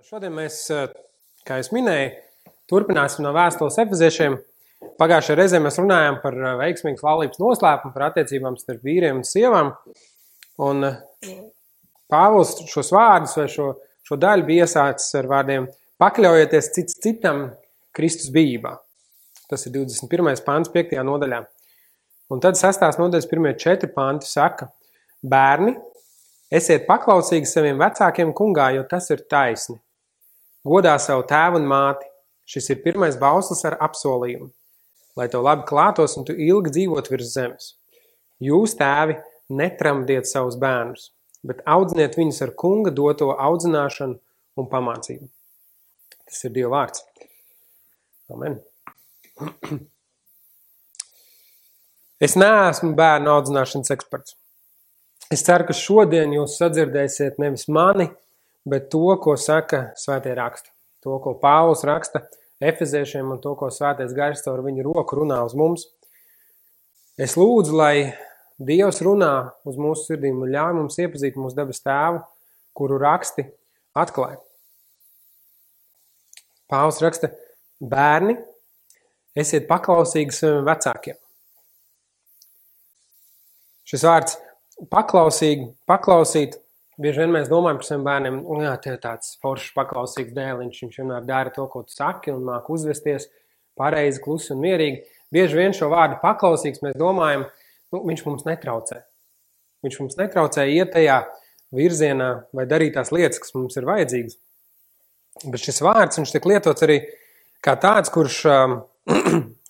Šodien mēs, kā es minēju, turpināsim no vēstules Efeziešiem. Pagājušajā reizē mēs runājām par veiksmīgas laulības noslēpumu, par attiecībām starp vīriem un sievām. Un Pāvils šos vārdus vai šo daļu bija iesācis ar vārdiem pakļaujieties cits citam Kristus bijībā. Tas ir 21. pants 5. nodaļā. Un tad 6. nodaļas 1. 4 panti saka: Bērni, esiet paklausīgi saviem vecākiem kungā, jo tas ir taisni. Godā savu tēvu un māti. Šis ir pirmais bauslis ar apsolījumu, lai tev labi klātos un tu ilgi dzīvot virs zemes. Jūs, tēvi, netramdiet savus bērnus, bet audziniet viņus ar kunga doto audzināšanu un pamācību. Tas ir Dieva vārds. Amen. Es neesmu bērnu audzināšanas eksperts. Es ceru, ka šodien jūs sadzirdēsiet nevis mani, bet to, ko saka svētie raksti. To, ko Pāvils raksta Efeziešiem un to, ko svētais gars caur viņu roku runā uz mums. Es lūdzu, lai Dievs runā uz mūsu sirdīm un ļauj mums iepazīt mūsu debes tēvu, kuru raksti atklāja. Pāvils raksta: Bērni, esiet paklausīgi saviem vecākiem. Šis vārds paklausīt, bieži vien mēs domājam par saviem bērniem, jā, tev tāds foršs paklausīgs dēliņš, viņš vienmēr dara to, ko tu saki, un māk uzvesties pareizi, klusi un mierīgi. Bieži vien šo vārdu paklausīgs mēs domājam, viņš mums netraucē. Viņš mums netraucē iet tajā virzienā vai darīt tās lietas, kas mums ir vajadzīgas. Bet šis vārds, viņš tiek lietots arī kā tāds, kurš,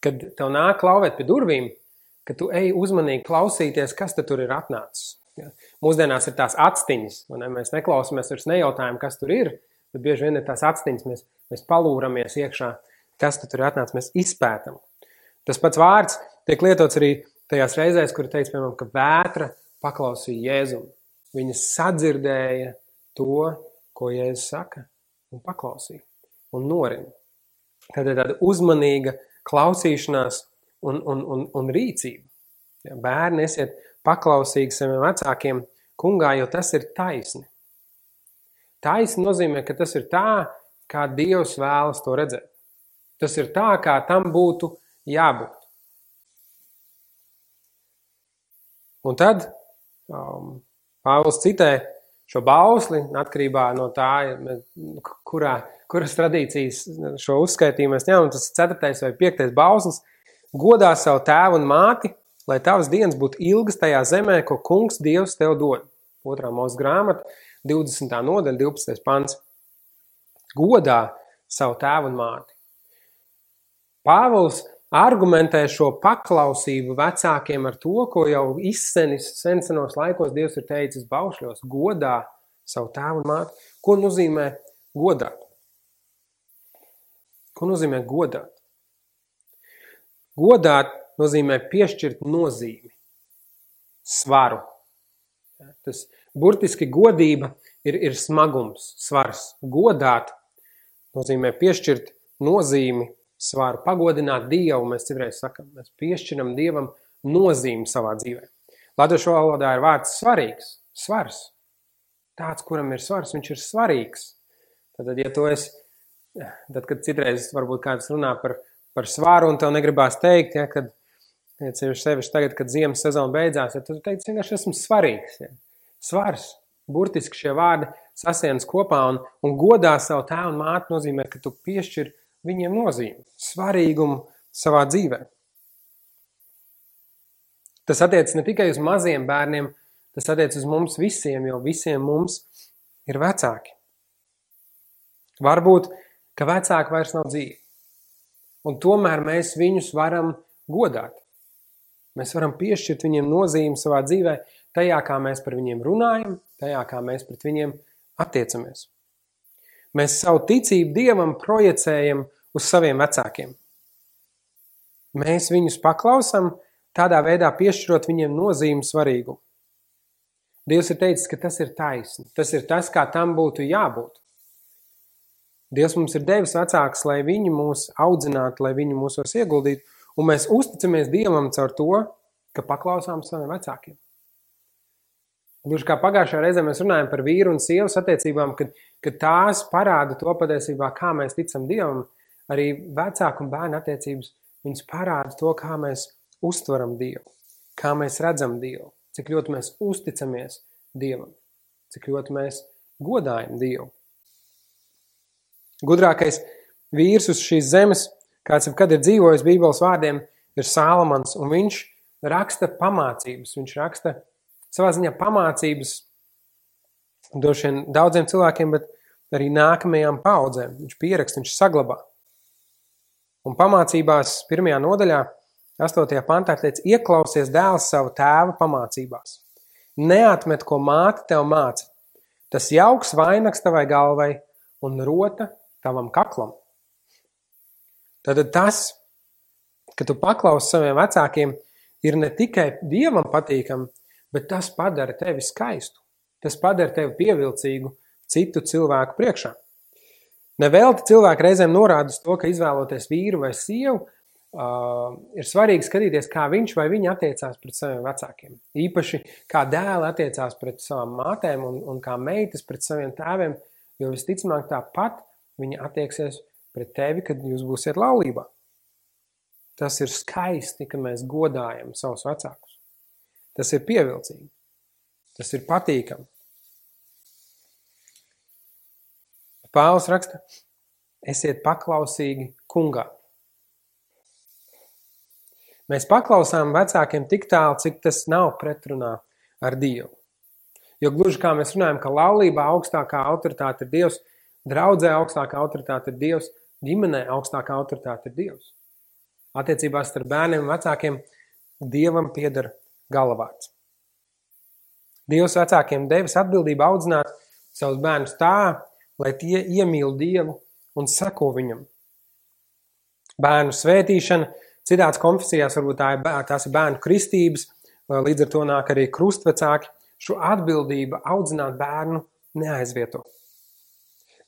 kad tev nāk klauvēt pie durvīm, ka tu ej uzmanīgi klausīties, kas te tur ir atnācis. Ja. Mūsdienās ir tās atstiņas, mēs neklausamies, vairs nejautājam, kas tur ir, bet bieži vien ir tās atstiņas, mēs palūramies iekšā, kas tur ir atnācis, mēs izpētam. Tas pats vārds tiek lietots arī tajās reizēs, kur teica, piemēram, ka vētra paklausīja Jēzumu. Viņa sadzirdēja to, ko Jēzus saka, un paklausīja, un norina. Tad ir tāda uzmanīga klausīšanās un rīcība. Ja, bērni, esiet paklausīgi saviem vecākiem kungā, jo tas ir taisni. Taisni nozīmē, ka tas ir tā, kā Dievs vēlas to redzēt. Tas ir tā, kā tam būtu jābūt. Un tad Pāvils citē šo bausli, atkarībā no tā, kuras tradīcijas šo uzskaitījumu mēs ņemam, tas ir 4. vai 5. bauslis: Godā savu tēvu un māti, lai tavas dienas būtu ilgas tajā zemē, ko kungs Dievs tev dod. 2. Mūzes grāmata, 20. nodaļa, 12. pants. Godā savu tēvu un māti. Pāvils argumentē šo paklausību vecākiem ar to, ko jau izsenis senos laikos Dievs ir teicis baušļos: godā savu tēvu un māti. Ko nozīmē godāt? Ko nozīmē godāt? Godāt nozīmē piešķirt nozīmi, svaru. Tas burtiski godība ir smagums, svars. Godāt nozīmē piešķirt nozīmi, svaru, pagodināt Dievu, mēs citreiz sakam. Mēs piešķiram Dievam nozīmi savā dzīvē. Latviešu valodā ir vārds svarīgs, svars. Tāds, kuram ir svars, viņš ir svarīgs. Tad, ja tu esi, tad, kad citreiz varbūt kāds runā par svaru un tev negribās teikt, ja, kad sevišķi tagad, kad ziemas sezona beidzās, ja tu teici, vienkārši esmu svarīgs. Ja. Svars, burtiski šie vārdi sasienas kopā un godā savu tēvu un māti nozīmē, ka tu piešķir viņiem nozīmi, svarīgumu savā dzīvē. Tas attiec ne tikai uz maziem bērniem, tas attiec uz mums visiem, jo visiem mums ir vecāki. Varbūt, ka vecāki vairs nav dzīvi. Un tomēr mēs viņus varam godāt. Mēs varam piešķirt viņiem nozīmi savā dzīvē, tajā, kā mēs par viņiem runājam, tajā, kā mēs pret viņiem attiecamies. Mēs savu ticību Dievam projicējam uz saviem vecākiem. Mēs viņus paklausam, tādā veidā piešķirot viņiem nozīmi svarīgumu. Dievs ir teicis, ka tas ir taisni. Tas ir tas, kā tam būtu jābūt. Dievs mums ir devis vecākus, lai viņi mūs audzinātu, lai viņi mūsos ieguldītu, un mēs uzticamies Dievam caur to, ka paklausām saviem vecākiem. Gluži kā pagājušajā reizē mēs runājam par vīru un sievas attiecībām, kad tās parāda to patiesībā, kā mēs ticam Dievam, arī vecāku un bērnu attiecības, viņas parāda to, kā mēs uztveram Dievu, kā mēs redzam Dievu, cik ļoti mēs uzticamies Dievam, cik ļoti mēs godājam Dievu. Gudrākais vīrs uz šīs zemes, kāds jebkad ir dzīvojis Bībeles vārdiem, ir Sālamans, un viņš raksta pamācības, viņš raksta savā ziņā pamācības droši vien daudziem cilvēkiem, bet arī nākamajām paudzēm. Viņš pieraksta, viņš saglabā. Un pamācībās 1. nodaļā, 8. pantā teica, ieklausies dēls savu tēva pamācībās. Neatmet, ko māte tev māca. Tas jauks vainags tavai galvai un rota tavam kaklam. Tad tas, ka tu paklausi saviem vecākiem, ir ne tikai Dievam patīkam, bet tas padara tevi skaistu. Tas padara tevi pievilcīgu citu cilvēku priekšā. Nevelti cilvēki reizēm norāda uz to, ka izvēloties vīru vai sievu, ir svarīgi skatīties, kā viņš vai viņa attiecās pret saviem vecākiem. Īpaši kā dēli attiecās pret savām mātēm un kā meitas pret saviem tēviem, jo visticamāk tāpat viņa attieksies pret tevi, kad jūs būsiet laulībā. Tas ir skaisti, ka mēs godājam savus vecākus. Tas ir pievilcīgi. Tas ir patīkami. Pāvils raksta, esiet paklausīgi kungā. Mēs paklausām vecākiem tik tālu, cik tas nav pretrunā ar Dievu. Jo gluži kā mēs runājam, ka laulībā augstākā autoritāte ir Dievs, draudzē augstākā autoritāte ir Dievs, ģimenē augstākā autoritāte ir Dievs. Attiecībās starp bērniem un vecākiem Dievam pieder galvārds. Dievs vecākiem devis atbildību audzināt savus bērnus tā, lai tie iemīl Dievu un seko viņam. Bērnu svētīšana, citās konfesijās varbūt tās ir bērnu kristības, līdz ar to nāk arī krustvecāki, šo atbildību audzināt bērnu neaizvieto.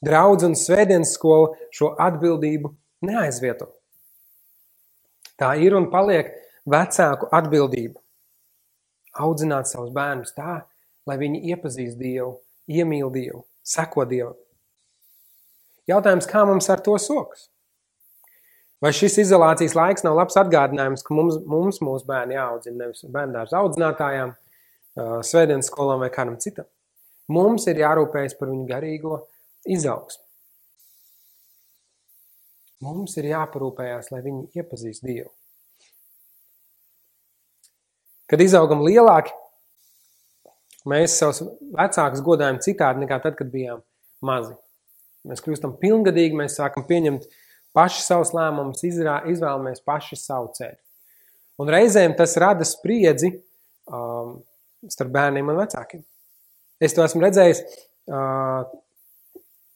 Draudz un svētdienas skola šo atbildību neaizvieto. Tā ir un paliek vecāku atbildība. Audzināt savus bērnus tā, lai viņi iepazīst Dievu, iemīl Dievu, seko Dievam. Jautājums, kā mums ar to sokas? Vai šis izolācijas laiks nav labs atgādinājums, ka mums mūsu bērni jāaudzina nevis bērndārza audzinātājām, svētdienas skolām vai kādam citam? Mums ir jārūpējas par viņu garīgo izaugsmu. Mums ir jāparūpējās, lai viņi iepazīst Dievu. Kad izaugam lielāki, mēs savus vecākus godājam citādi nekā tad, kad bijām mazi. Mēs kļūstam pilngadīgi, mēs sākam pieņemt paši savus lēmumus, izvēlamies paši savu ceļu. Un reizēm tas rada spriedzi starp bērniem un vecākiem. Es to esmu redzējis,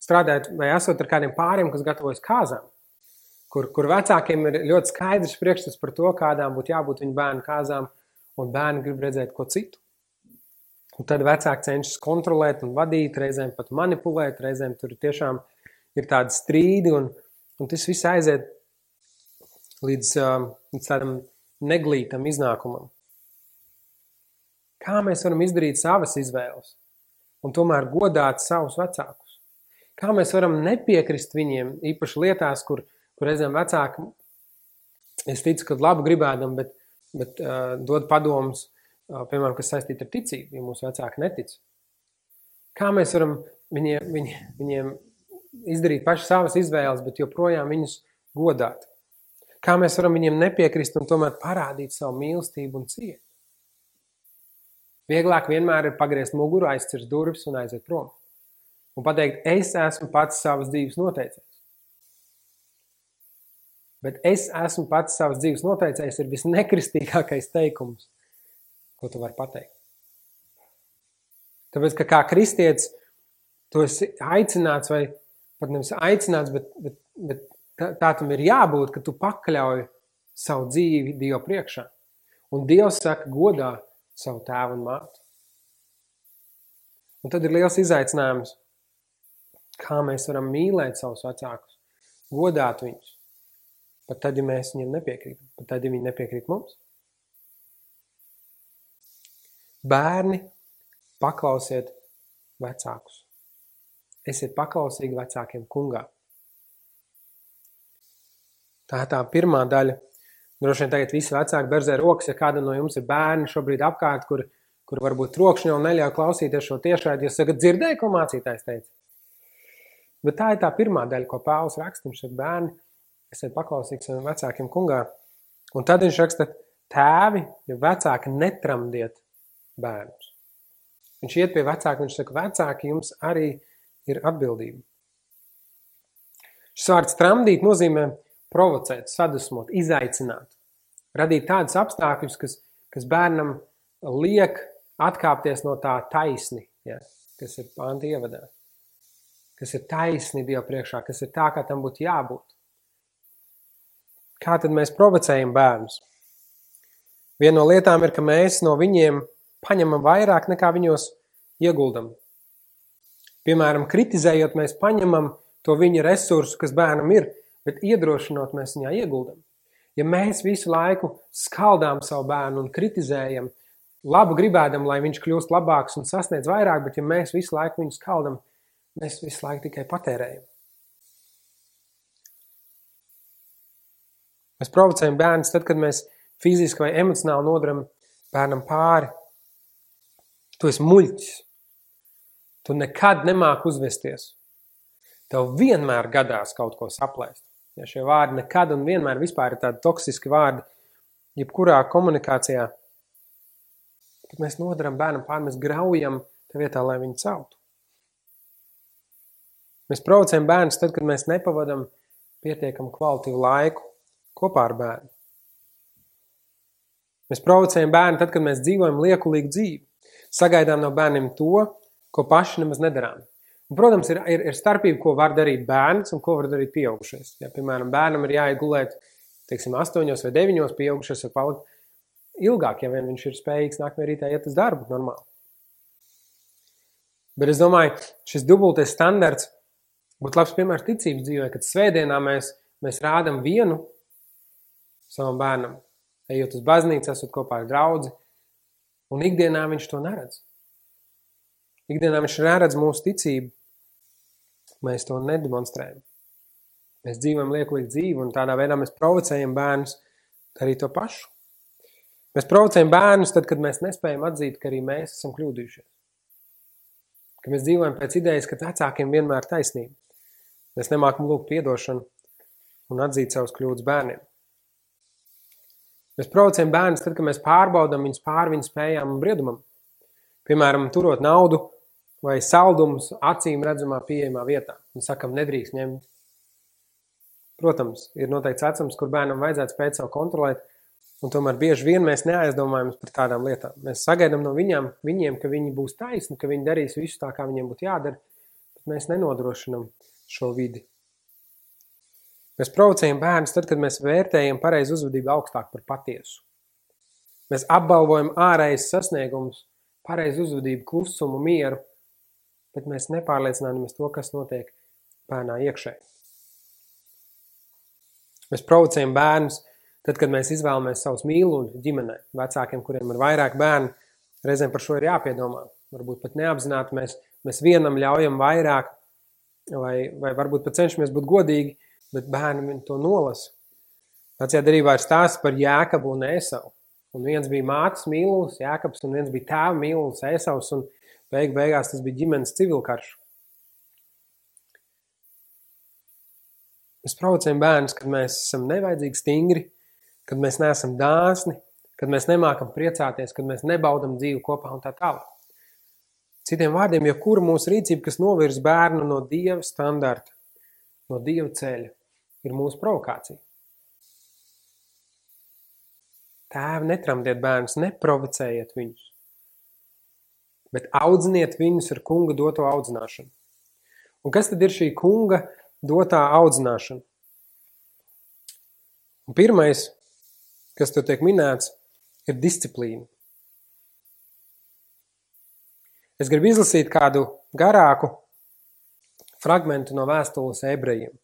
strādājot vai esot ar kādiem pāriem, kas gatavojas kāzām, kur vecākiem ir ļoti skaidrs priekšstats par to, kādām būtu jābūt viņu bērnu kāzām, un bērni grib redzēt ko citu. Un tad vecāki cenšas kontrolēt un vadīt, reizēm pat manipulēt, reizēm tur tiešām ir tādi strīdi, un tas viss aiziet līdz tādam neglītam iznākumam. Kā mēs varam izdarīt savas izvēles un tomēr godāt savus vecākus? Kā mēs varam nepiekrist viņiem, īpaši lietās, kur reizēm vecāki, es ticu, ka labu gribēdam, bet dod padomus, piemēram, kas saistīti ar ticību, ja mūsu vecāki netic. Kā mēs varam viņiem izdarīt paši savas izvēles, bet joprojām viņus godāt? Kā mēs varam viņiem nepiekrist un tomēr parādīt savu mīlestību un cieņu? Vieglāk vienmēr ir pagriezt muguru, aizcirst durvis un aiziet prom. Un pateikt, es esmu pats savas dzīves noteicējs. Bet es esmu pats savas dzīves noteicējs ir visnekristīgākais teikums, ko tu vari pateikt. Tāpēc, ka kā kristietis, tu esi aicināts, vai pat nevis aicināts, bet tā tam ir jābūt, ka tu pakļauj savu dzīvi Dievu priekšā. Un Dievs saka, godā savu tēvu un māti. Un tad ir liels izaicinājums, kā mēs varam mīlēt savus vecākus, godāt viņus. Pat tad, ja mēs viņiem nepiekrītam, pat tad, ja viņi nepiekrīt mums. Bērni paklausiet vecākus. Esiet paklausīgi vecākiem kungā. Tā ir tā pirmā daļa. Droši vien tagad visi vecāki berzē rokas, ja kāda no jums ir bērni šobrīd apkārt, kur varbūt trokšņi jau neļauj klausīties šo tiešraidi, jūs sakat, dzirdēju, ko mācītājs teica. Bet tā ir tā pirmā daļa, ko Pāvils raksta, viņš saka, bērni, esiet paklausīgi saviem vecākiem kungā. Un tad viņš raksta, tēvi, ja vecāki netramdiet bērnus. Viņš iet pie vecāka, viņš saka, vecāki, jums arī ir atbildība. Šis vārds tramdīt nozīmē provocēt, sadusmot, izaicināt, radīt tādus apstākļus, kas bērnam liek atkāpties no tā taisni, ja, kas ir pānta ievadā, kas ir taisni Dieva priekšā, kas ir tā, kā tam būtu jābūt. Kā tad mēs provocējam bērnus? Viena no lietām ir, ka mēs no viņiem paņemam vairāk nekā viņos ieguldam. Piemēram, kritizējot, mēs paņemam to viņa resursu, kas bērnam ir, bet iedrošinot mēs viņā ieguldam. Ja mēs visu laiku skaldām savu bērnu un kritizējam, labu gribēdam, lai viņš kļūst labāks un sasniedz vairāk, bet ja mēs visu laiku viņu skaldam, mēs visu laiku tikai patērējam. Mēs provocējam bērnus tad, kad mēs fiziski vai emocionāli nodaram bērnam pāri. Tu esi muļķis. Tu nekad nemāki uzvesties. Tev vienmēr gadās kaut ko saplēst. Ja šie vārdi nekad un vienmēr vispār ir tādi toksiski vārdi, jebkurā komunikācijā, kad mēs nodaram bērnam pāri, mēs graujam tā vietā, lai viņu celtu. Mēs provocējam bērnus tad, kad mēs nepavadam pietiekam kvalitīvu laiku kopā ar bērnu. Mēs provocējam bērnu tad, kad mēs dzīvojam liekulīgu dzīvi. Sagaidām no bērniem to, ko paši nemaz nedarām. Un, protams, ir starpība, ko var darīt bērns un ko var darīt pieaugušais. Ja, piemēram, bērnam ir jāiet gulēt, 8 vai 9, pieaugušais var palikt ilgāk, ja vien viņš ir spējīgs nākamajā rītā iet uz darbu normāli. Bet es domāju, šis dubultais standarts būtu labs piemērs ticības dzīvē, kad svētdienā mēs rādam vienu savam bērnam, ejot uz baznīcu, esot kopā ar draudzi, un ikdienā viņš to neredz. Ikdienā viņš neredz mūsu ticību. Mēs to nedemonstrējam. Mēs dzīvojam liekulīgu dzīvi, un tādā veidā mēs provocējam bērnus darīt to pašu. Mēs provocējam bērnus tad, kad mēs nespējam atzīt, ka arī mēs esam kļūdījušies. Ka mēs dzīvojam pēc idejas, ka vecākiem vienmēr taisnība. Mēs nemākam lūgt piedošanu un atzīt savus kļūdas bērniem. Mēs provocējam bērnus tad, kad mēs pārbaudam viņus pāri viņu spējām un briedumam. Piemēram, turot naudu vai saldumus acīm redzamā pieejamā vietā. Un sakam, nedrīkst ņemt. Protams, ir noteikts vecums, kur bērnam vajadzētu spēt savu kontrolēt, un tomēr bieži vien mēs neaizdomājamies par tādām lietām. Mēs sagaidām no viņiem, ka viņi būs taisni, ka viņi darīs visu tā, kā viņiem būtu jādara, bet mēs nenodrošinam šo vidi. Mēs provocējam bērnus tad, kad mēs vērtējam pareizu uzvedību augstāk par patiesu. Mēs apbalvojam ārējas sasniegumus, pareizu uzvedību, klusumu, mieru, bet mēs nepārliecināmies to, kas notiek bērnā iekšē. Mēs provocējam bērnus tad, kad mēs izvēlamies savus mīluļus ģimenē, vecākiem, kuriem ir vairāk bērnu, reizēm par šo ir jāpiedomā. Varbūt pat neapzināti mēs vienam ļaujam vairāk, vai varbūt pat cenšamies būt godīgi, bet bērni to nolasa. Vecajā derībā ir stāsts par Jēkabu un Ēsavu. Un viens bija mātes mīlulis, Jēkabs, un viens bija tēva mīlulis, Ēsavs, un beigās tas bija ģimenes civilkarš. Mēs provocējam bērnus, kad mēs esam nevajadzīgi stingri, kad mēs neesam dāsni, kad mēs nemākam priecāties, kad mēs nebaudam dzīvi kopā un tā tālāk. Citiem vārdiem, jebkura mūsu rīcība, kas novirz bērnu no Dieva standarta, no Dieva ceļa, ir mūsu provokācija. Tēvi, netramdiet bērnus, neprovocējiet viņus, bet audziniet viņus ar kunga doto audzināšanu. Un kas tad ir šī kunga dotā audzināšana? Un pirmais, kas tur tiek minēts, ir disciplīna. Es gribu izlasīt kādu garāku fragmentu no vēstules ebrejiem.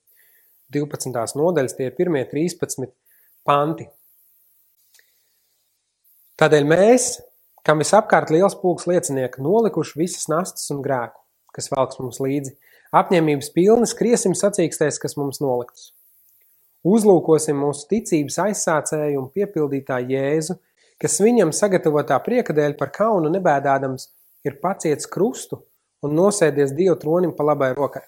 12. nodaļas, tie ir pirmie 13 panti. Tādēļ mēs, kam visapkārt liels pulks liecinieki, nolikuši visas nastas un grēku, kas velks mums līdzi. Apņēmības pilni skriesim sacīkstēs, kas mums noliktas. Uzlūkosim mūsu ticības aizsācēju un piepildītāju Jēzu, kas viņam sagatavotā prieka dēļ par kaunu nebēdādams ir paciets krustu un nosēdies Dieva tronim pa labai rokai.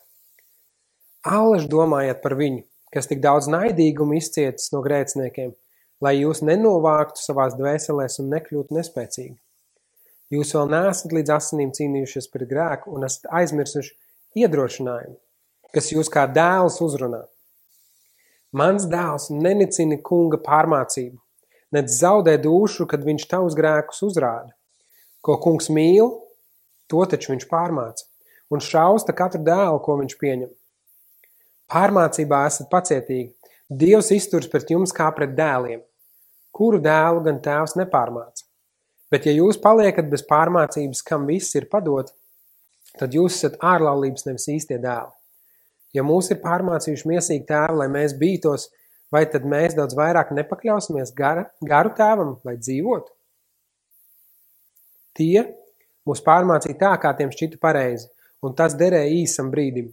Allaž domājiet par viņu, kas tik daudz naidīgumu izcietis no grēciniekiem, lai jūs nenovāktu savās dvēselēs un nekļūtu nespēcīgi. Jūs vēl neesat līdz asinīm cīnījušies pret grēku un esat aizmirsuši iedrošinājumu, kas jūs kā dēls uzrunā. Mans dēls nenicina kunga pārmācību, nec zaudē dūšu, kad viņš tavus grēkus uzrāda. Ko kungs mīl, to taču viņš pārmāca, un šausta katru dēlu, ko viņš pieņem. Pārmācībā esat pacietīgi. Dievs izturs pret jums kā pret dēliem, kuru dēlu gan tēvs nepārmāca. Bet ja jūs paliekat bez pārmācības, kam viss ir padot, tad jūs esat ārlaulības nevis īstie dēli. Ja mūs ir pārmācījuši miesīgi tēvi, lai mēs bītos, vai tad mēs daudz vairāk nepakļausimies garu tēvam, lai dzīvotu? Tie mūs pārmācīja tā, kā tiem šķita pareizi, un tas derēja īsam brīdim.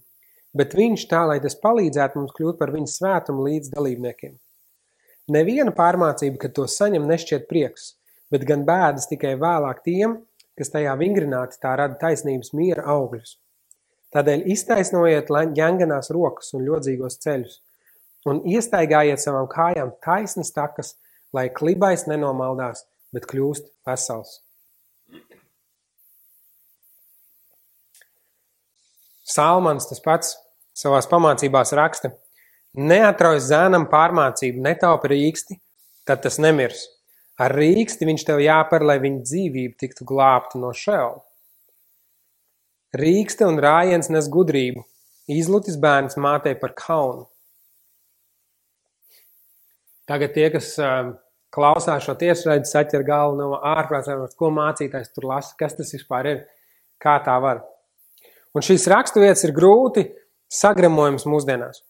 Bet viņš tā, lai tas palīdzētu mums kļūt par viņa svētumu līdz dalībniekiem. Neviena pārmācība, kad to saņem, nešķiet prieks, bet gan bēdas tikai vēlāk tiem, kas tajā vingrināti tā rada taisnības miera augļus. Tādēļ iztaisnojiet ģenganās rokas un ļodzīgos ceļus un iestaigājiet savām kājām taisnas takas, lai klibais nenomaldās, bet kļūst vesels. Salmans tas pats savās pamācībās raksta: neatrauj zēnam pārmācību, netaupa rīksti, tad tas nemirs. Ar rīksti viņš tev jāpar, lai viņa dzīvība tiktu glābta no šeola. Rīkste un rājiens nes gudrību, izlutis bērns mātei par kaunu. Tagad tie, kas klausās šo tiešraidi, saķer galvu no ārprātā, ko mācītājs tur lasa, kas tas vispār ir, kā tā var. Un šīs raksturvietas ir grūti sagramojums mūsdienās.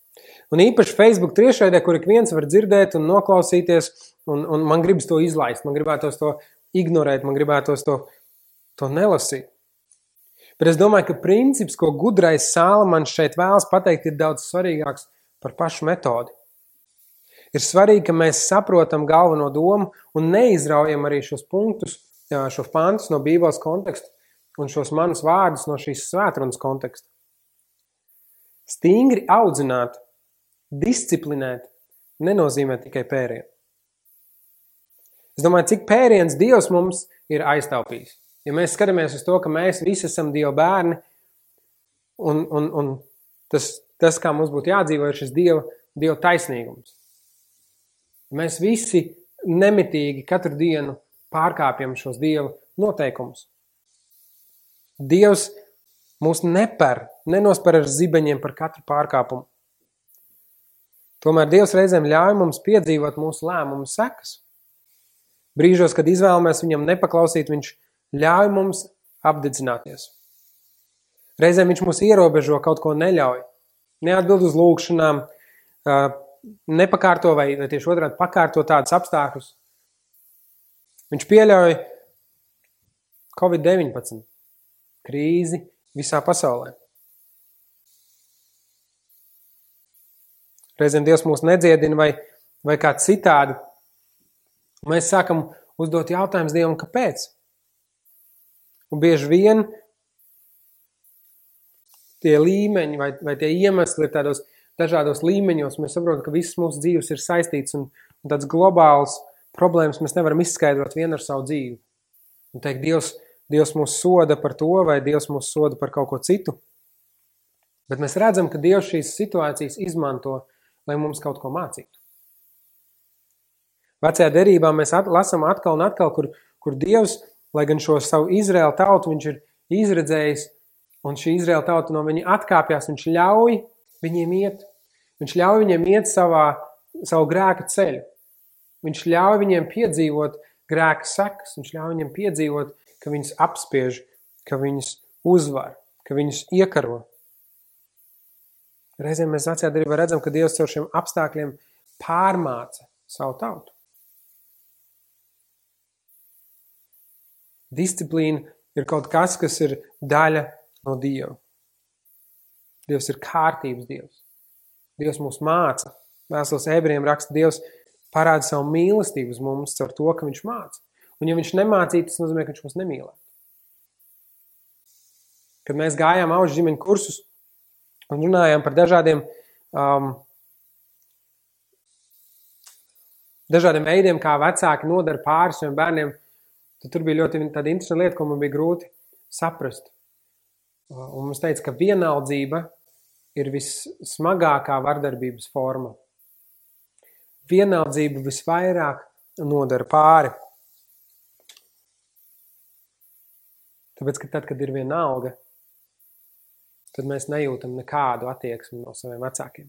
Un īpaši Facebook tiešraidē, kur ik viens var dzirdēt un noklausīties, un man gribas to izlaist, man gribētos to ignorēt, man gribētos to nelasīt. Bet es domāju, ka princips, ko gudrais Salmans šeit vēlas pateikt, ir daudz svarīgāks par pašu metodi. Ir svarīgi, ka mēs saprotam galveno domu un neizraujam arī šos punktus, šos pantus no Bībeles konteksta un šos manus vārdus no šīs svētrunas konteksta. Stingri audzināt, disciplinēt nenozīmē tikai pērienu. Es domāju, cik pēriens Dievs mums ir aiztaupījis. Ja mēs skatāmies uz to, ka mēs visi esam Dieva bērni, un tas, kā mums būtu jādzīvo, ir šis Dieva taisnīgums. Mēs visi nemitīgi katru dienu pārkāpjam šos Dieva noteikumus. Dievs mūs nenospar ar zibeņiem par katru pārkāpumu. Tomēr Dievs reizēm ļauj mums piedzīvot mūsu lēmumu sekas. Brīžos, kad izvēlamies viņam nepaklausīt, viņš ļauj mums apdedzināties. Reizēm viņš mūs ierobežo, kaut ko neļauj. Neatbild uz lūgšanām, nepakārto vai tieši otrādi pakārto tādus apstākļus. Viņš pieļauj Covid-19 krīzi visā pasaulē. Reizēm Dievs mūs nedziedina vai kā citādi. Mēs sākam uzdot jautājumus Dievam, kāpēc? Un bieži vien tie līmeņi vai tie iemesli ir tādos dažādos līmeņos. Mēs saprotam, ka visas mūsu dzīves ir saistīts un tāds globāls problēmas mēs nevaram izskaidrot vienu ar savu dzīvi. Un teikt, Dievs mūs soda par to vai Dievs mūs soda par kaut ko citu. Bet mēs redzam, ka Dievs šīs situācijas izmanto, lai mums kaut ko mācītu. Vecajā derībā mēs lasām atkal un atkal, kur Dievs, lai gan šo savu Izraēlu tautu viņš ir izredzējis, un šī Izraēla tauta no viņa atkāpjās, viņš ļauj viņiem iet. Viņš ļauj viņiem iet savu grēka ceļu. Viņš ļauj viņiem piedzīvot grēka sekas. Viņš ļauj viņiem piedzīvot, ka viņus apspiež, ka viņus uzvar, ka viņus iekaro. Reizēm mēs vecajā derībā redzam, ka Dievs caur šiem apstākļiem pārmāca savu tautu. Disciplīna ir kaut kas, kas ir daļa no Dieva. Dievs ir kārtības Dievs. Dievs mūs māca. Vēstules Ebrejiem raksta, Dievs parāda savu mīlestību uz mums caur to, ka viņš māca. Un ja viņš nemācītu, tas nozīmē, ka viņš mūs nemīlētu. Kad mēs gājām auģu ģimeņu kursus un runājām par dažādiem veidiem, kā vecāki nodara pāri saviem bērniem, tad tur bija ļoti tāda interesanta lieta, ko man bija grūti saprast. Un mums teica, ka vienaldzība ir vissmagākā vardarbības forma. Vienaldzība visvairāk nodara pāri. Tāpēc, ka tad, kad ir vienalga, tad mēs nejūtam nekādu attieksmi no saviem vecākiem.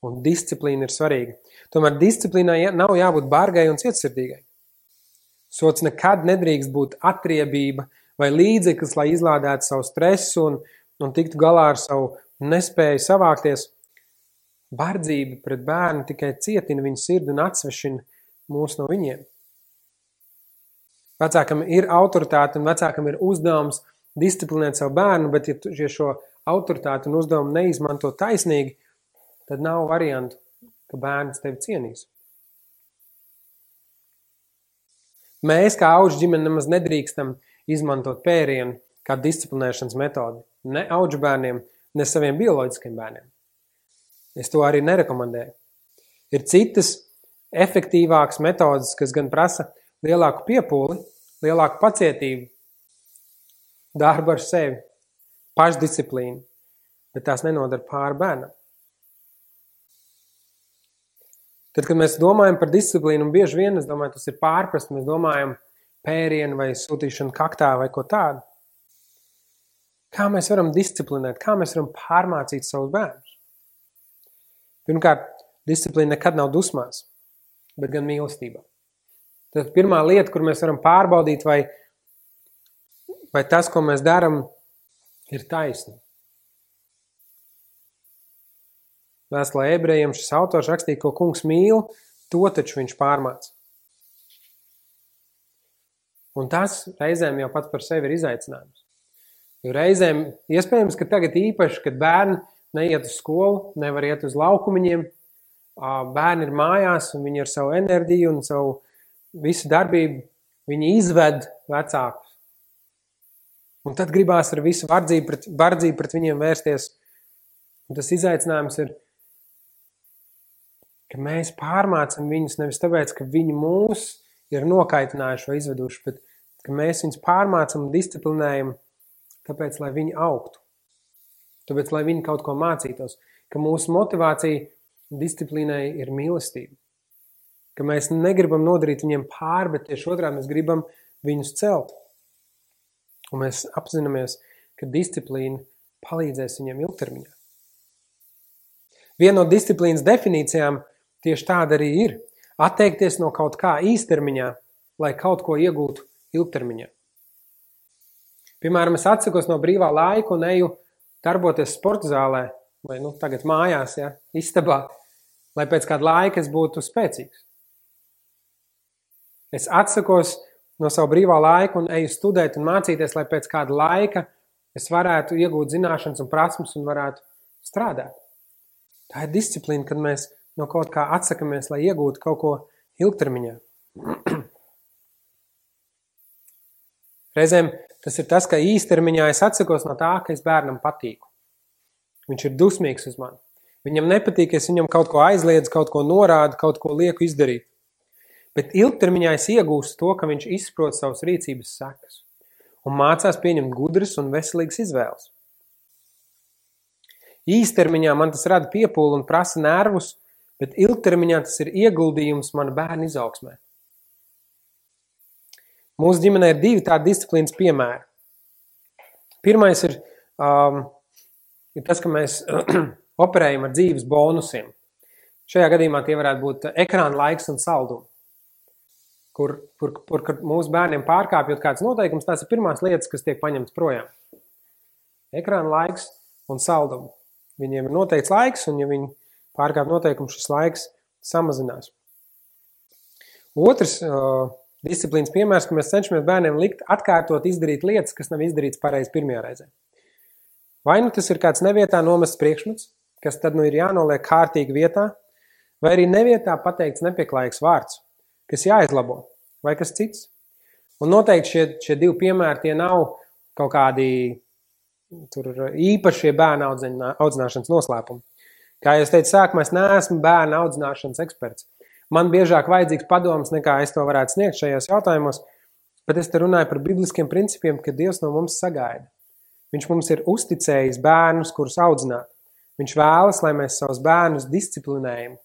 Un disciplīna ir svarīga. Tomēr disciplīnai nav jābūt bargai un cietsirdīgai. Sots nekad nedrīkst būt atriebība vai līdzeklis, lai izlādētu savu stresu un tiktu galā ar savu nespēju savākties. Bardzība pret bērnu tikai cietina viņu sirdi un atsvešina mūs no viņiem. Vecākam ir autoritāte un vecākam ir uzdevums disciplinēt savu bērnu, bet ja šo autoritāti un uzdevumu neizmanto taisnīgi, tad nav variantu, ka bērns tevi cienīs. Mēs, kā auģu ģimene, nemaz nedrīkstam izmantot pērienu kā disciplinēšanas metodi. Ne auģu bērniem, ne saviem bioloģiskiem bērniem. Es to arī nerekomendēju. Ir citas efektīvākas metodas, kas gan prasa lielāku piepūli, lielāku pacietību, darbu ar sevi, pašdisciplīnu, bet tās nenodara pāri bērnam. Tad, kad mēs domājam par disciplīnu, un bieži vien, es domāju, tas ir pārprast, mēs domājam pērienu vai sūtīšanu kaktā vai ko tādu. Kā mēs varam disciplinēt, kā mēs varam pārmācīt savus bērnus? Pirmkārt, disciplīna nekad nav dusmās, bet gan mīlestībā. Tad pirmā lieta, kur mēs varam pārbaudīt, vai tas, ko mēs daram, ir taisni. Vēstulē Ebrejiem šis autors rakstīja, ko kungs mīl, to taču viņš pārmāca. Un tas reizēm jau pats par sevi ir izaicinājums. Jo reizēm, iespējams, ka tagad īpaši, kad bērni neiet uz skolu, nevar iet uz laukumiņiem, bērni ir mājās un viņi ar savu enerģiju un savu visu darbību, viņi izved vecākus. Un tad gribās ar visu bardzību pret viņiem vērsties. Un tas izaicinājums ir, ka mēs pārmācam viņus nevis tāpēc, ka viņi mūs ir nokaitinājuši vai izveduši, bet ka mēs viņus pārmācam un disciplinējam, tāpēc, lai viņi augtu. Tāpēc, lai viņi kaut ko mācītos. Ka mūsu motivācija disciplīnai ir mīlestība. Ka mēs negribam nodarīt viņiem pāri, bet tieši otrādi mēs gribam viņus celt. Un mēs apzināmies, ka disciplīna palīdzēs viņiem ilgtermiņā. Viena no disciplīnas definīcijām tieši tāda arī ir. Atteikties no kaut kā īstermiņā, lai kaut ko iegūtu ilgtermiņā. Piemēram, es atsakos no brīvā laika un eju darboties sporta zālē, vai tagad mājās, istabā, lai pēc kāda laika es būtu spēcīgs. Es atsakos no savu brīvā laika un eju studēt un mācīties, lai pēc kāda laika es varētu iegūt zināšanas un prasmes un varētu strādāt. Tā ir disciplīna, kad mēs no kaut kā atsakamies, lai iegūtu kaut ko ilgtermiņā. Reizēm tas ir tas, ka īstermiņā es atsakos no tā, ka es bērnam patīku. Viņš ir dusmīgs uz mani. Viņam nepatīk, es viņam kaut ko aizliedzu, kaut ko norādu, kaut ko lieku izdarīt. Bet ilgtermiņā es iegūstu to, ka viņš izprot savas rīcības sekas un mācās pieņemt gudras un veselīgas izvēles. Īstermiņā man tas rada piepūli un prasa nervus, bet ilgtermiņā tas ir ieguldījums mana bērna izaugsmē. Mūsu ģimenē ir 2 tādi disciplīnas piemēri. Pirmais ir tas, ka mēs operējam ar dzīves bonusiem. Šajā gadījumā tie varētu būt ekrāna laiks un saldumi. Kur mūsu bērniem pārkāpjot kāds noteikums, tās ir pirmās lietas, kas tiek paņemts projām. Ekrāna laiks un saldumi. Viņiem ir noteikts laiks, un ja viņi pārkāp noteikumu, šis laiks samazinās. Otrs Disciplīnas piemērs, ka mēs cenšamies bērniem likt atkārtot izdarīt lietas, kas nav izdarīts pareizi pirmajā reizē. Vai nu tas ir kāds nevietā nomests priekšmets, kas tad nu ir jānoliek kārtīgi vietā, vai arī nevietā pateikts nepieklājīgs vārds, kas jāizlabo, vai kas cits. Un noteikti šie divi piemēri tie nav kaut kādi īpašie bērna audzināšanas noslēpumi. Kā jau es teicu sākumā, es neesmu bērna audzināšanas eksperts. Man biežāk vajadzīgs padoms, nekā es to varētu sniegt šajos jautājumos, bet es te runāju par bibliskiem principiem, ka Dievs no mums sagaida. Viņš mums ir uzticējis bērnus, kurus audzināt. Viņš vēlas, lai mēs savus bērnus disciplinējam,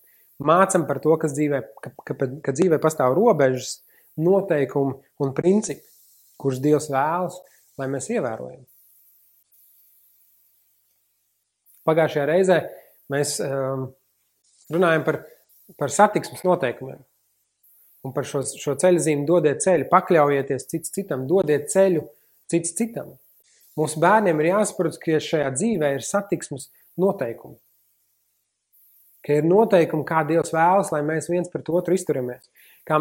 mācam par to, ka dzīvē pastāv robežas, noteikumi un principi, kurus Dievs vēlas, lai mēs ievērojam. Pagājušajā reizē mēs runājam par satiksmes noteikumiem un par šo ceļzīmi dodiet ceļu, pakļaujieties cits citam, dodiet ceļu cits citam. Mūsu bērniem ir jāsaprot, ka šajā dzīvē ir satiksmes noteikumi. Ka ir noteikumi, kā Dievs vēlas, lai mēs viens pret otru izturamies. Kā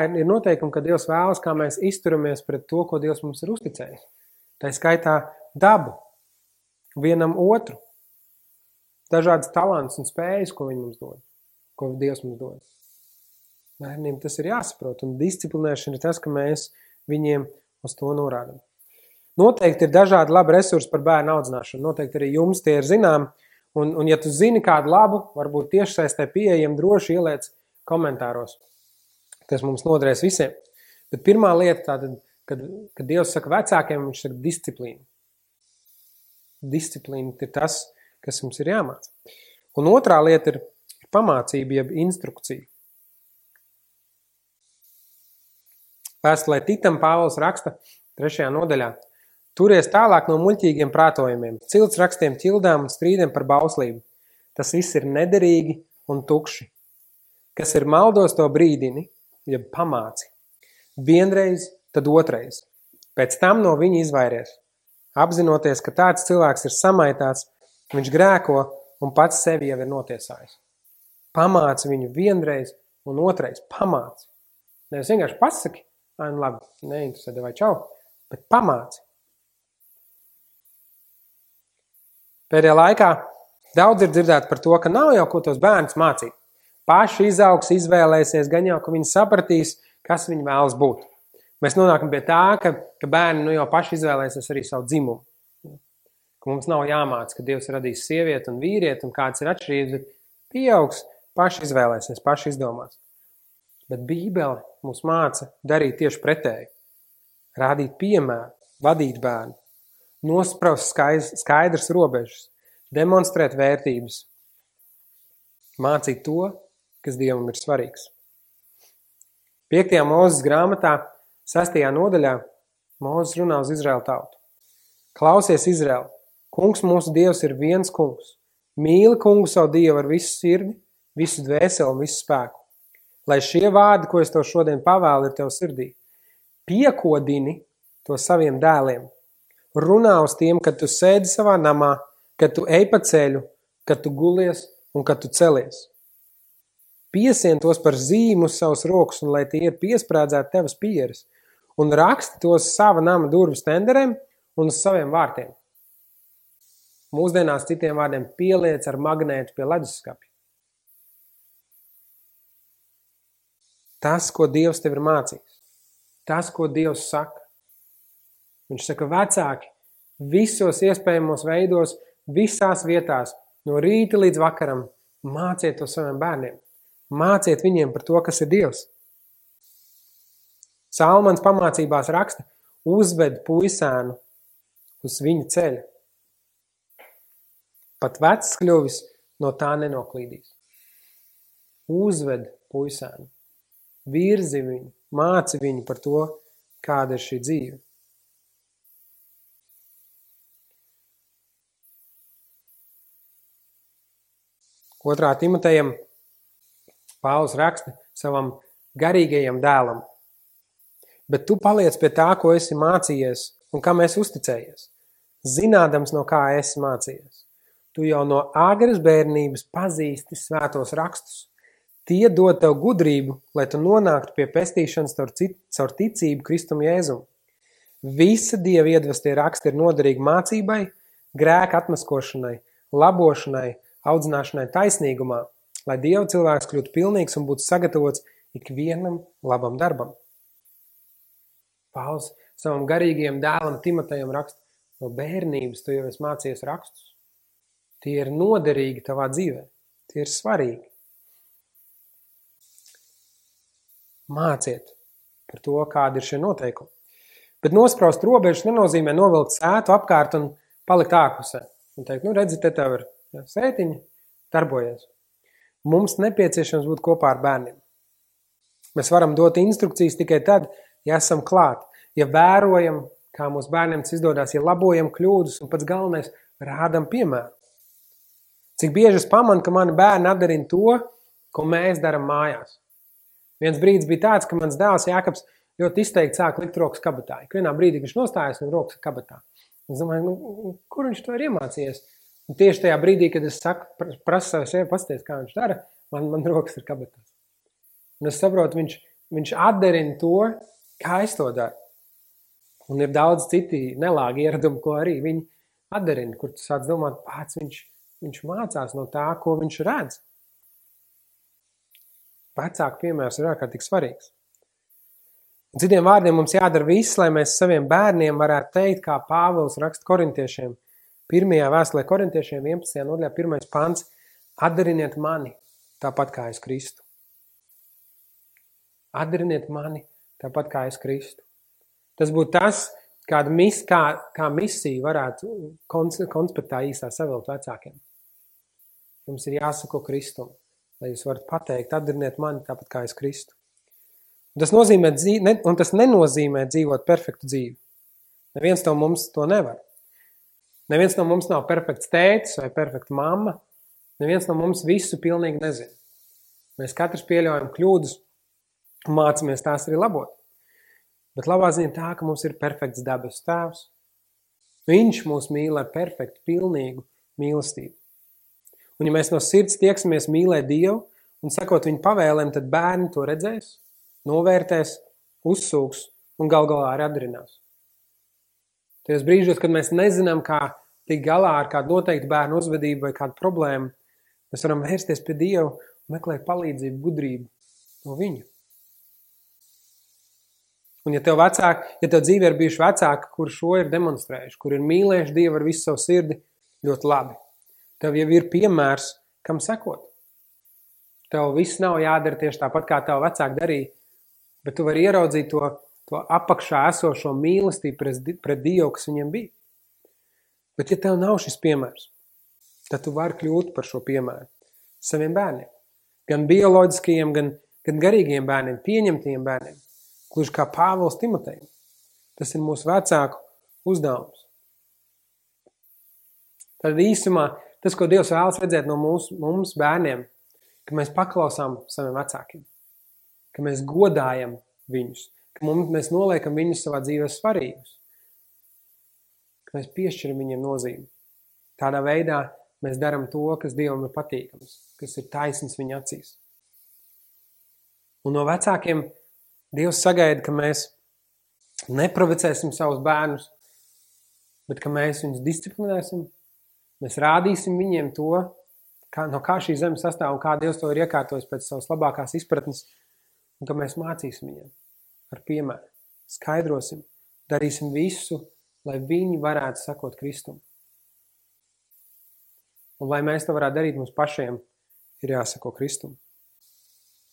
ir noteikumi, ka Dievs vēlas, kā mēs izturamies pret to, ko Dievs mums ir uzticējis. Tā skaitā dabu, vienam otru, dažādas talants un spējas, ko viņi mums dod, ko Dievs mums dod. Bērniem tas ir jāsaprot, un disciplinēšana ir tas, ka mēs viņiem uz to norādam. Noteikti ir dažādi labi resursi par bērnu audzināšanu. Noteikti arī jums tie ir zinām. Un ja tu zini kādu labu, varbūt tiešsaistē pieejam, droši ieliec komentāros. Tas mums noderēs visiem. Bet pirmā lieta tātad, kad Dievs saka vecākiem, viņš saka disciplīna. Disciplīna ir tas, kas mums ir jāmāc. Un otrā lieta ir pamācība, jeb instrukcija. Vēstulē Titam Pāvils raksta 3. nodaļā. Turies tālāk no muļķīgiem prātojumiem, cilts rakstiem, ķildām un strīdiem par bauslību. Tas viss ir nederīgi un tukši. Kas ir maldos, to brīdini, jeb pamāci. Vienreiz, tad otrais. Pēc tam no viņa izvairies. Apzinoties, ka tāds cilvēks ir samaitāts, viņš grēko un pats sevi jau ir notiesājis. Pamāci viņu vienreiz un otrais. Pamāci. Nevis vienkārši pasaki, labi, neinteresē, vai čau, bet pamāci. Pēdējā laikā daudz ir dzirdēt par to, ka nav jau ko tos bērnus mācīt. Paši izaugs, izvēlēsies, gan jau, ka viņi sapratīs, kas viņi vēlas būt. Mēs nonākam pie tā, ka bērni jau paši izvēlēsies arī savu dzimumu. Ka mums nav jāmāc, ka Dievs radīs sievieti un vīrieti un kāds ir atšķirības, bet pieaugs, paši izvēlēsies, paši izdomās. Bet Bībele mums māca darīt tieši pretēji. Rādīt piemēru, vadīt bērnu. Nospraust skaidrs robežas, demonstrēt vērtības, mācīt to, kas Dievam ir svarīgs. 5. Mūzes grāmatā, 6. nodaļā, Mūzes runā uz Izraēlu tautu. Klausies, Izraēl, kungs mūsu Dievs ir viens kungs. Mīli kungu savu Dievu ar visu sirdi, visu dvēseli un visu spēku. Lai šie vārdi, ko es tev šodien pavēlu, ir tev sirdī. Piekodini to saviem dēliem. Runā uz tiem, kad tu sēdi savā namā, kad tu ej pa ceļu, kad tu gulies un kad tu celies. Piesien tos par zīmu uz savas rokas, un lai tie ir piesprādzēti tevas pieres, un raksti tos sava nama durvu stenderēm un uz saviem vārtiem. Mūsdienās citiem vārdiem pieliec ar magnētu pie leduskapja. Tas, ko Dievs tev ir mācījis, tas, ko Dievs saka. Viņš saka, vecāki, visos iespējamos veidos, visās vietās, no rīta līdz vakaram, māciet to saviem bērniem. Māciet viņiem par to, kas ir Dievs. Salmans pamācībās raksta, uzved puisēnu uz viņa ceļa. Pat vecs kļuvis no tā nenoklīdīs. Uzved puisēnu, virzi viņu, māci viņu par to, kāda ir šī dzīve. 2. Timotejam Pāvils raksta savam garīgajam dēlam. Bet tu paliec pie tā, ko esi mācījies un kam esi uzticējies, zinādams, no kā esi mācījies. Tu jau no agras bērnības pazīsti svētos rakstus. Tie dod tev gudrību, lai tu nonāktu pie pestīšanas caur ticību Kristum Jēzum. Visa Dieva iedvestie raksti ir noderīgi mācībai, grēka atmaskošanai, labošanai, audzināšanai taisnīgumā, lai Dieva cilvēks kļūtu pilnīgs un būtu sagatavots ikvienam labam darbam. Pāvils savam garīgajam dēlam Timotejam raksta, no bērnības tu jau esi mācījies rakstus. Tie ir noderīgi tavā dzīvē, tie ir svarīgi. Māciet par to, kādi ir šie noteikumi. Bet nospraust robežas nenozīmē novilkt sētu apkārt un palikt ārpusē. Un teikt, redzi, te tev ir sētiņa, darbojies. Mums nepieciešams būt kopā ar bērniem. Mēs varam dot instrukcijas tikai tad, ja esam klāt, ja vērojam, kā mūsu bērniem tas izdodas, ja labojam kļūdas un pats galvenais rādam piemēru. Cik bieži es pamanu, ka mani bērni atdarina to, ko mēs daram mājās. Viens brīdis bija tāds, ka mans dēls Jākabs ļoti izteikti sāk likt rokas kabatā. Vienā brīdī viņš nostājas un rokas kabatā. Es domāju, kur viņš to ir iemācījies? Un tieši tajā brīdī, kad es saku, prasu savu sevi, pasties, kā viņš dara, man rokas ir kabatās. Un es saprotu, viņš atdarina to, kā es to daru. Un ir daudz citi nelāgi ieradumi, ko arī viņi atdarina, kur tu sāc domāt, pats viņš mācās no tā, ko viņš redz. Vecāku piemērs ir ārkārtīgi svarīgs. Un citiem vārdiem mums jādara viss, lai mēs saviem bērniem varētu teikt, kā Pāvils raksta korintiešiem. 1. vēstulē korintiešiem 11. nodaļā 1. pants. Atdariniet mani tāpat kā es Kristu. Atdariniet mani tāpat kā es Kristu. Tas būtu tas, kā misija varētu konspektā īstā savilkt vecākiem. Jums ir jāsako Kristum, lai jūs varat pateikt, atdariniet mani tāpat kā es Kristu. Un tas nenozīmē dzīvot perfektu dzīvi. Neviens no mums to nevar. Neviens no mums nav perfekts tētis vai perfekta mamma. Neviens no mums visu pilnīgi nezina. Mēs katrs pieļaujam kļūdas un mācāmies tās arī labot. Bet labā ziņa tā, ka mums ir perfekts dabas tēvs. Viņš mūs mīl ar perfektu, pilnīgu mīlestību. Un ja mēs no sirds tieksimies mīlēt Dievu un sakot viņu pavēlēm, tad bērni to redzēs, novērtēs, uzsūks un gal galā arī atdarinās. Tajos brīžos, kad mēs nezinām, kā tikt galā ar kādu noteiktu bērnu uzvedību vai kādu problēmu, mēs varam vērsties pie Dievu un meklēt palīdzību, gudrību no viņu. Un ja tev dzīvē ir bijuši vecāki, kur šo ir demonstrējuši, kur ir mīlējuši Dievu ar visu savu sirdi, ļoti labi. Tev jau ir piemērs, kam sekot. Tev viss nav jādara tieši tāpat, kā tev vecāki darīja, bet tu vari ieraudzīt to apakšā esošo mīlestību pret Dievu, kas viņiem bija. Bet ja tev nav šis piemērs, tad tu vari kļūt par šo piemēru saviem bērniem. Gan bioloģiskajiem, gan garīgiem bērniem, pieņemtiem bērniem. Gluži kā Pāvils Timotejam. Tas ir mūsu vecāku uzdevums. Tad īsumā tas, ko Dievs vēlas redzēt no mums bērniem, ka mēs paklausām saviem vecākiem, ka mēs godājam viņus, ka mēs noliekam viņus savā dzīvē svarīgus, ka mēs piešķiram viņiem nozīmi. Tādā veidā mēs darām to, kas Dievam ir patīkams, kas ir taisns viņa acīs. Un no vecākiem Dievs sagaida, ka mēs neprovocēsim savus bērnus, bet ka mēs viņus disciplinēsim, mēs rādīsim viņiem to, no kā šī zeme sastāv un kā Dievs to ir iekārtojis pēc savas labākās izpratnes, un ka mēs mācīsim viņiem ar piemēru, skaidrosim, darīsim visu, lai viņi varētu sakot Kristum. Un lai mēs to varētu darīt, mums pašiem ir jāsako Kristum.